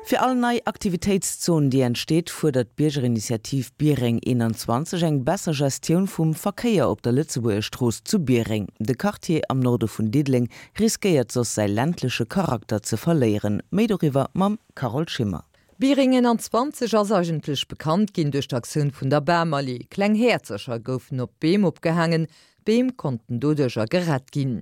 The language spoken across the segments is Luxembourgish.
Fir all nei Aktivitéitszon, déi entsteet, fuerdert d'Biergerinitiativ Biereng 21 eng besser Gestioun vum Verkéier op der Lëtzebuerger Strooss zu Biereng. De Quartier am Norde vun Diddeleng riskéiert soss säi ländleche Charakter ze verléieren. Méi doriwwer mam Carole Schimmer. Biereng 21 ass eigentlech bekannt ginn duerch d'Aktioun vun der Bamallee. Kleng Häerzercher goufen op d'Beem opgehaangen, D'Beem konnten doduercher gerett ginn.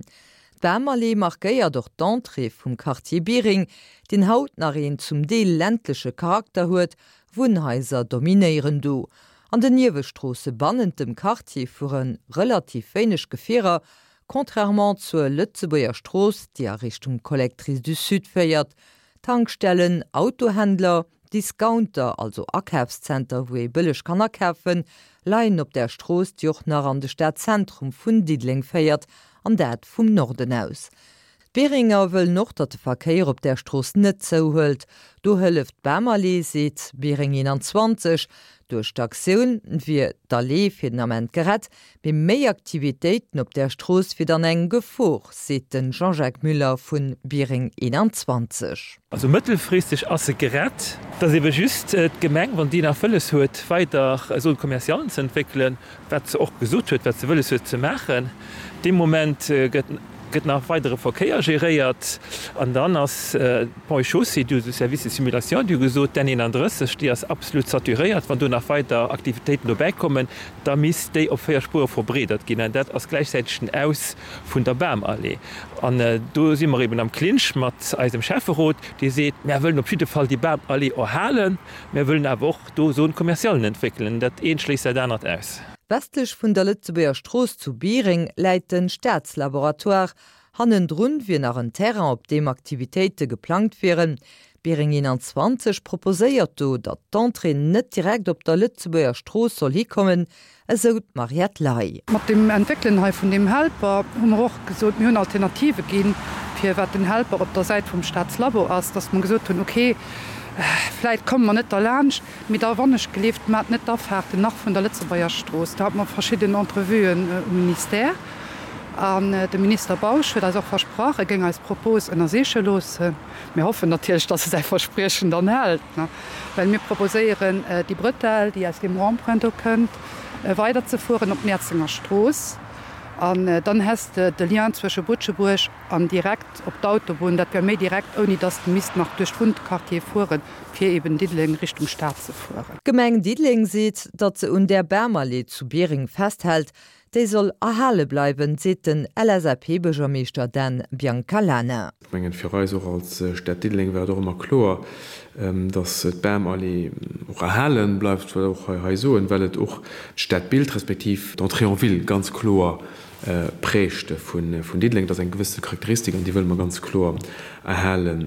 D'Bamallee markéiert och d'Entrée vum Quartier Biereng, deen haut nach een zum Deel ländleche Charakter huet, Wunnhaiser dominéieren do. An den Niewestroosse bannent dem Quartier fuere relativ wéineg Gefierer, contrairement zur Lëtzebuerger Strooss, déi a Richtung Collectrice du Sud féiert. Tankstellen, Autohändler, Discounter, also Akafszenter wou ee bëlleg kann akafen, leien op där Strooss, déi och nach an de Stadzentrum vun Diddeleng féiert, an dat vum Norden aus. D'Beringer wëllen och, datt de Verkéier op där Strooss net zouhëlt. Do hëlleft d'Bamallee, seet Biereng 21. Duerch d'Aktioun wier d'Allee fir den Ament gerett, Mee méi Aktivitéiten op där Strooss wier dann eng Gefor, seet de Jean-Jacques Müller vu Biereng 21. Also mëttelfristeg ass se gerett. Et ass ebe just d'Gemeng, wann déi nach wëlles huet, weider Zone commercialen ze entwéckelen, wat se och gesot huet, wat se wëlles huet ze maachen. Dee Moment gëtt gëtt nach weidere Verkéier geréiert an dann ass d'Ponts et Chaussées, du de Service de simulation, déi hu gesot, d'N 31, déi ass absolut saturéiert, wann do nach weider Aktivitéiten dobäi kommen, da misst déi op 4 Spuere verbreedert ginn an dat ass gläichzäiteg den Aus vun der Bamallee. An do si mer eben am Clinch mat eisem Schäfferot, dee seet, Mär wëllen op jidde Fall déi Bamallee erhalen, mär wëllen awer och do Zone-commercialen entwéckelen. Dat eent schléisst dat anert aus. Westlech vun der Lëtzebuerger Strooss zu Biereng läit de Staatslaboratoire. Hannendrun wier nach en Terrain, op deem Aktivitéite geplangt wieren. Biereng 21 proposéiert do, datt d'Entrée net direkt op der Lëtzebuerger Strooss soll hikommen, esou d'Mariette Ley. Mat dem Entwéckelen hei vun deem Helper hu mer och gesot, mir hunn Alternative ginn, fir wat den Helper op der Säit vum Staatslabo ass, datt mer gesot hunn, okay, vläit komme mer net derlaanscht, mee da wannechgelift, maacht net d'Afaarten nach vun der Lëtzebuerger Strooss. Do hate mer verschidden Entrevuen um Ministère an de Minister Bausch huet eis och versprach, e géing eis Propos ënnersiche loossen. Mir hoffen natierlech, dass e säi Verspriechen dann hält, well mir proposéieren, déi Bretelle, déi aus deem Rond-point do kënnt, weiderzefueren op d'Mäerzenger Strooss. An dann häss de de Lien zwësche Butschebuerg an direkt op d'Autobunn. Dat wär méi direkt, ouni dass de misst nach duerch d'Wunnquartiere fueren, fir eben Diddeleng Richtung Stad ze fueren. D'Gemeng Diddeleng seet, datt se un där Bamallee zu Biereng festhält, Déi soll erhale bleiwen, seet den LSAP-Buergermeeschter Dan Biancalana. Ech mengen, fir eis och als Stad Diddeleng war et och ëmmer kloer, dass d'Bamallee och erhale bleift, wëll och hei soen, well et och d'Stadbild respektiv d'Entrée en ville ganz kloer prägt vun Diddeleng. Dat ass eng gewësse Charakteristik an déi wëlle mer ganz kloer erhale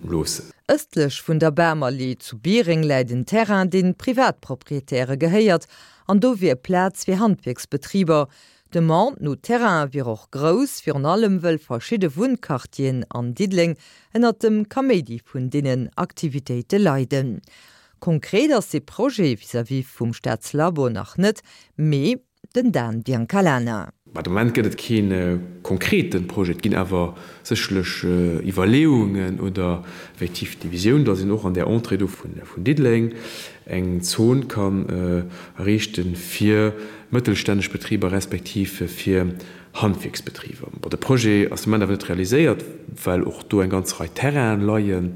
loossen. Ëstlech vun der Bamallee zu Biereng läit en Terrain, dee Privatproprietäre gehéiert An do wier Plaz fir Handwierksbetriber. D'Demande no Terraine wier och grouss, virun allem wëll verschidde Wunnquartieren an Diddeleng ënnert dem Kaméidi vun deenen Aktivitéite leiden. Konkret ass dee Projet vis-à-vis vum Staatslabo nach net, mee den Dan Biancalana. Mä de Moment gëtt et kee konkrete Projet. Et ginn awer sécherlech Iwwerleeungen oder effektiv déi Visioun, datt een och an där Entrée do vun Diddeleng eng Zon kann erriichte fir mëttelstänneg Betriber respektiv fir Handwierksbetriber. Bon, de Projet ass de Moment awer net realiséiert, well och do eng ganz Rei Terrainen leien,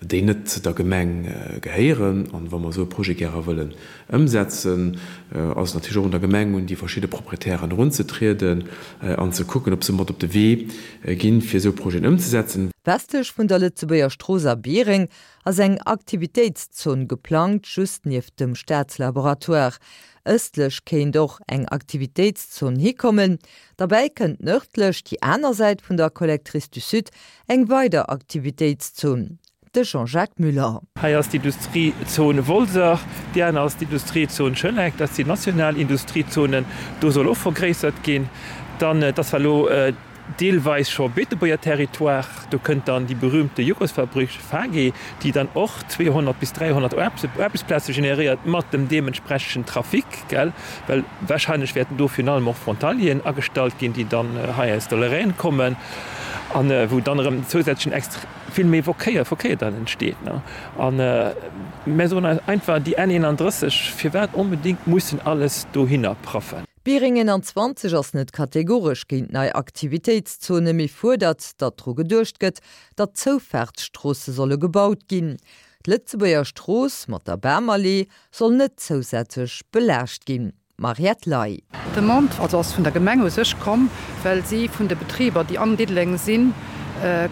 déi net der Gemeng gehéieren. An wa mer esou e Projet gäre wëllen ëmsetzen, ass et natierlech och un der Gemeng, un déi verschidde Proprietären erunzetrieden an ze kucken, ob se mat op de Wee ginn, fir esou Projeten ëmzesetzen. Westlech vun der Lëtzebuerger Strooss a Biereng ass eng Aktivitéitszon geplangt, just nieft dem Staatslaboratoire. Ëstlech kéint och eng Aktivitéitszon hikommen. Derbäi kënnt nërdlech, déi aner Säit vun der Collectrice du Sud, eng weider Aktivitéitszon. De Jean-Jacques Muller. Hei ass d'Industriezon Wolser, déi aner ass d'Industriezon Schëneck. Dat sinn national Industriezonen. Do soll och vergréissert ginn. Dann, et ass zwar elo deelweis scho Beetebuerger Territoire, do kënnt dann déi berühmte Joghurtsfabrik Fage, déi dann och 200 bis 300 Aarbechtsplaze generéiert, mat dem deementsprechenden Trafic, gell, well wahrscheinlech wäerten do virun allem och Frontalieren agestallt ginn, déi dann hei aus der Lorraine kommen, an wou dann erëm zousätzlechen. Vill méi Verkéier, Verkéier dann entsteet. A mär soen eis einfach, déi N 31, firwat onbedéngt mussen alles dohinner praffen? Biereng 21 ass net kategoresch géint nei Aktivitéitszone, mee fuerdert, datt dru geduecht gëtt, datt Zoufaartsstroosse solle gebaut ginn. D'Lëtzebuerger Strooss mat der Bamallee soll net zousätzlech belaascht ginn. Mariette Ley. D'Demande also ass vun der Gemeng u sech komm, well si vun de Betriber, déi an Diddeleng sinn,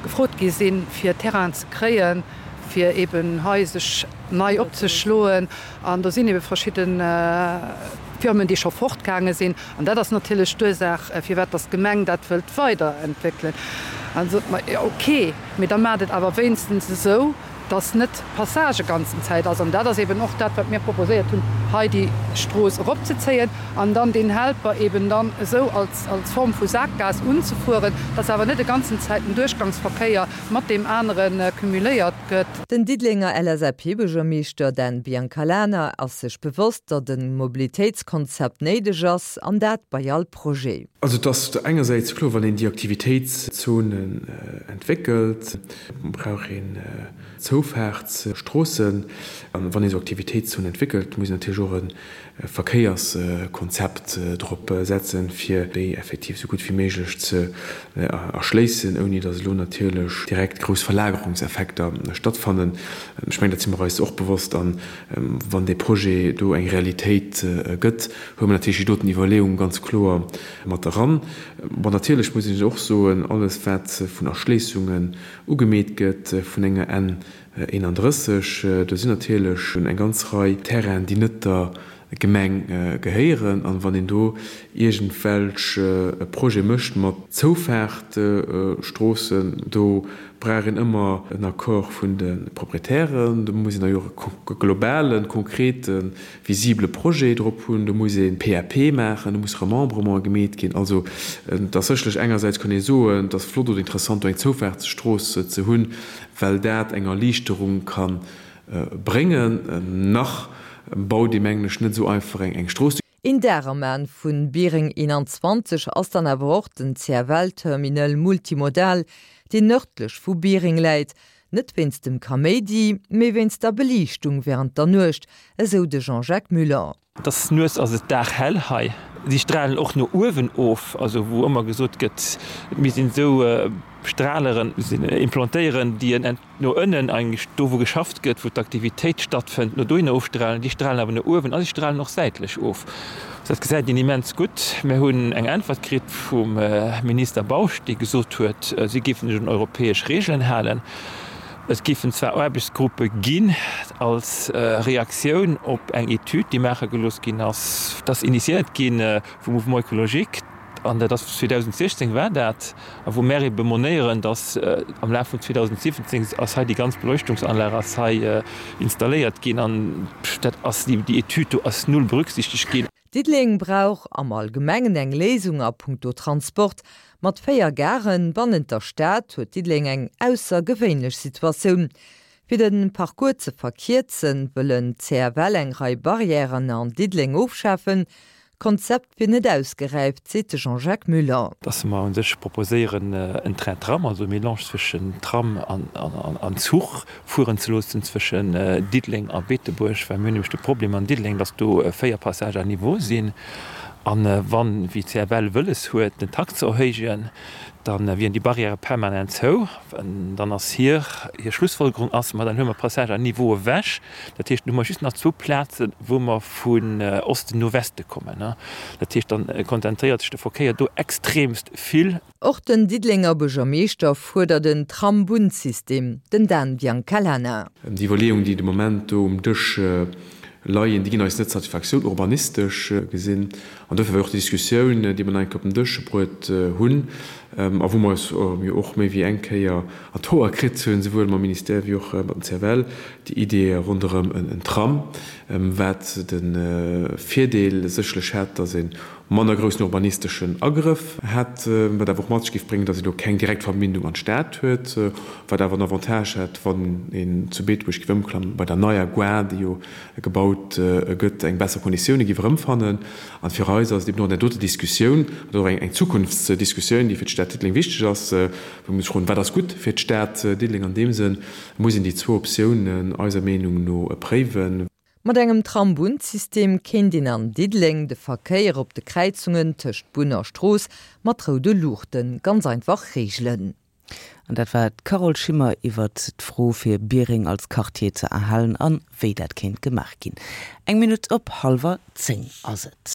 gefrot gi sinn, fir Terrainen ze kréien, fir eben hei sech nei opzeschloen. An do sinn ebe verschidde Firmen, déi scho fortgaange sinn. An dat ass natierlech d'Ursaach, firwat datt d'Gemeng dat wëllt weiderentwéckelen. An da sot mer, jo okay, mee da maacht et awer wéinstens esou, dass net d'Passage ganzen Zäit ass. An dat ass eben och dat, wat mir proposéiert hunn, hei déi Strooss eropzezéien an dann deen Helper eben dann esou als, als Form vu Saakgaass unzefueren, dass awer net e ganzen Zäit den Duerchgangsverkéier mat deem anere cumuléiert gëtt. Den Diddelenger LSAP-Buergermeeschter Dan Biancalana ass sech bewosst, datt e Mobilitéitskonzept néideg ass, an dat bei all Projet. Also et ass engersäits kloer, wann een déi Aktivitéitszonen entwéckelt, brauch een Zoufaartsstroossen. An wann ee sou Aktivitéitszonen entwéckelt, muss een natierlech och e Verkéierskonzept drop setzen, fir déi effektiv sou gutt wéi méiglech ze erschléissen, ouni datt elo natierlech direkt grouss Verlagerungseffekter stattfannen. Ech mengen, dat si mer eis och bewosst. An wann dee Projet do eng Realitéit gëtt, huele mer natierlech déi doten Iwwerleeung ganz kloer mat eran. Bon, natierlech muss een och soen, alles wat vun Erschléissungen ugemeet gëtt vun enger N 31, do sinn natierlech eng ganz Rei Terrainen, déi net der Gemeng gehéieren. An wann een do iergendwelch Projete mécht mat Zoufaartstroossen, do brauch een ëmmer en Accord vun de Proprietären, do muss een da jo och e globalen, konkreten visibele Projet drop hunn, do muss ee PAP maachen, do muss Remembrement gemeet ginn. Also et ass sécherlech engersäits kann ee soen, et ass flott oder interessant do eng Zoufaartsstrooss ze hunn, well dat eng Erliichterung ka bréngen. Nach baut ee mengen ech net esou einfach eng Strooss. Een Dag am An vun Biereng 21 ass dann awer och den CFL-Terminal Multimodal, deen nërdlech vu Biereng läit. Net wéinst dem Kaméidi, mee wéinst der Beliichtung wärend der Nuecht, esou de Jean-Jacques Muller. Et ass nuets ass et daghell hei. Si stralen och no uewen of, also wou ëmmer gesot gëtt, et misst een esou Straleren implantéieren, déi en no ënnen, eigentlech do wou geschafft gëtt, wou d'Aktivitéit stattfënnt, no dohinner ofstralen. Déi stralen awer no uewen a si stralen och säitlech of. Dat gesäit een immens gutt. Mir hunn eng Äntwert kritt vum Minister Bausch, dee gesot huet, si géifen sech un europäesch Regeln halen. Et géifen zwar Aarbechtsgruppe ginn als Reaktioun op eng Etüd, déi maache gelooss ginn ass, dat ass initiéiert gi vum Mouvement écologique, an dat ass 2016 war dat, a wou mär ebe monéieren, datt am Laf vun 2017 ass hei déi ganz Beleuchtungsanlag ass hei installéiert ginn an dat ass, déi Etüd do ass null berücksichtegt ginn. Diddeleng brauch am Allgemengen eng Léisung a punkto Transport. Mat 4 Garen bannent der Stad huet Diddeleng eng aussergewéinlech Situatioun. Fir de Parcours ze verkierzen, wëllen d'CFL eng Rei Barrièren an Diddeleng ofschafen. D'Konzept wier net ausgeräift, seet de Jean-Jacques Muller. Dass mer u sech proposéieren, en Train-Tram, also e Mélange zwëschen Tram an Zuch fueren ze loossen zwëschen Diddeleng a Beetebuerg, well mir hunn nämlech de Problem an Diddeleng, dass do 4 Passages à niveau sinn. A wann, wéi d'CFL wëlles huet, den Takt ze erhéijen, da wieren déi Barrièrë permanent zou. Dann ass hir Schlussfolgerung ass, ma dann huele mer d'Passages à niveau ewech. Dat heescht, dann hu mer just nach zwou Plazen, wou mer vun Osten no Weste kommen. Dat heescht, dann konzentréiert sech de Verkéier do extremst vill. Och den Diddelenger Buergermeeschter fuerdert en Tram-Bunn-System, den Dan Biancalana. Déi Iwwerleeungen, déi de Moment do um Dësch leien, déi ginn eis net Satisfaktioun, urbanistesch gesinn. An dofir war och déi Diskussioun, déi mer nach eng Kéier op den Dësch bruet hunn a wou mer eis jo och méi wéi eng Kéier an d'Hoer kritt hunn, souwuel mam Ministère wéi och mat dem CFL, déi Idee ronderëm en Tram, wat de Virdeel sécherlech hätt, datt een. manner groussen urbanisteschen Agrëff hätt, wat awer och mat sech géif bréngen, datt een do keng direkt Verbindung an d'Stad huet, wat awer en Avantage hätt, wann een zu Beetebuerg géif ëmklammen, bei der neier Gare, déi jo gebaut gëtt, eng besser Konditioune géif erëmfannen. An fir eis ass et eben och an där doter Diskussioun, an och eng Zukunftsdiskussioun, déi fir d'Stad Diddeleng wichteg ass, wou mir sech froen, wat ass gutt fir d'Stad Diddeleng an deem Sënn, muss een déi zwou Optiounen eiser Meenung no préiwen. Mat engem Tram-Bunn-System kéint een an Diddeleng de Verkéier op de Kräizungen tëscht Bunn a Strooss mat roude Luuchte ganz einfach reegelen. An dat war d'Carole Schimmer iwwert d'Fro fir Biereng als Quartier ze erhalen an wéi dat kéint gemaach ginn. Eng Minutt op hallwer 10 ass et.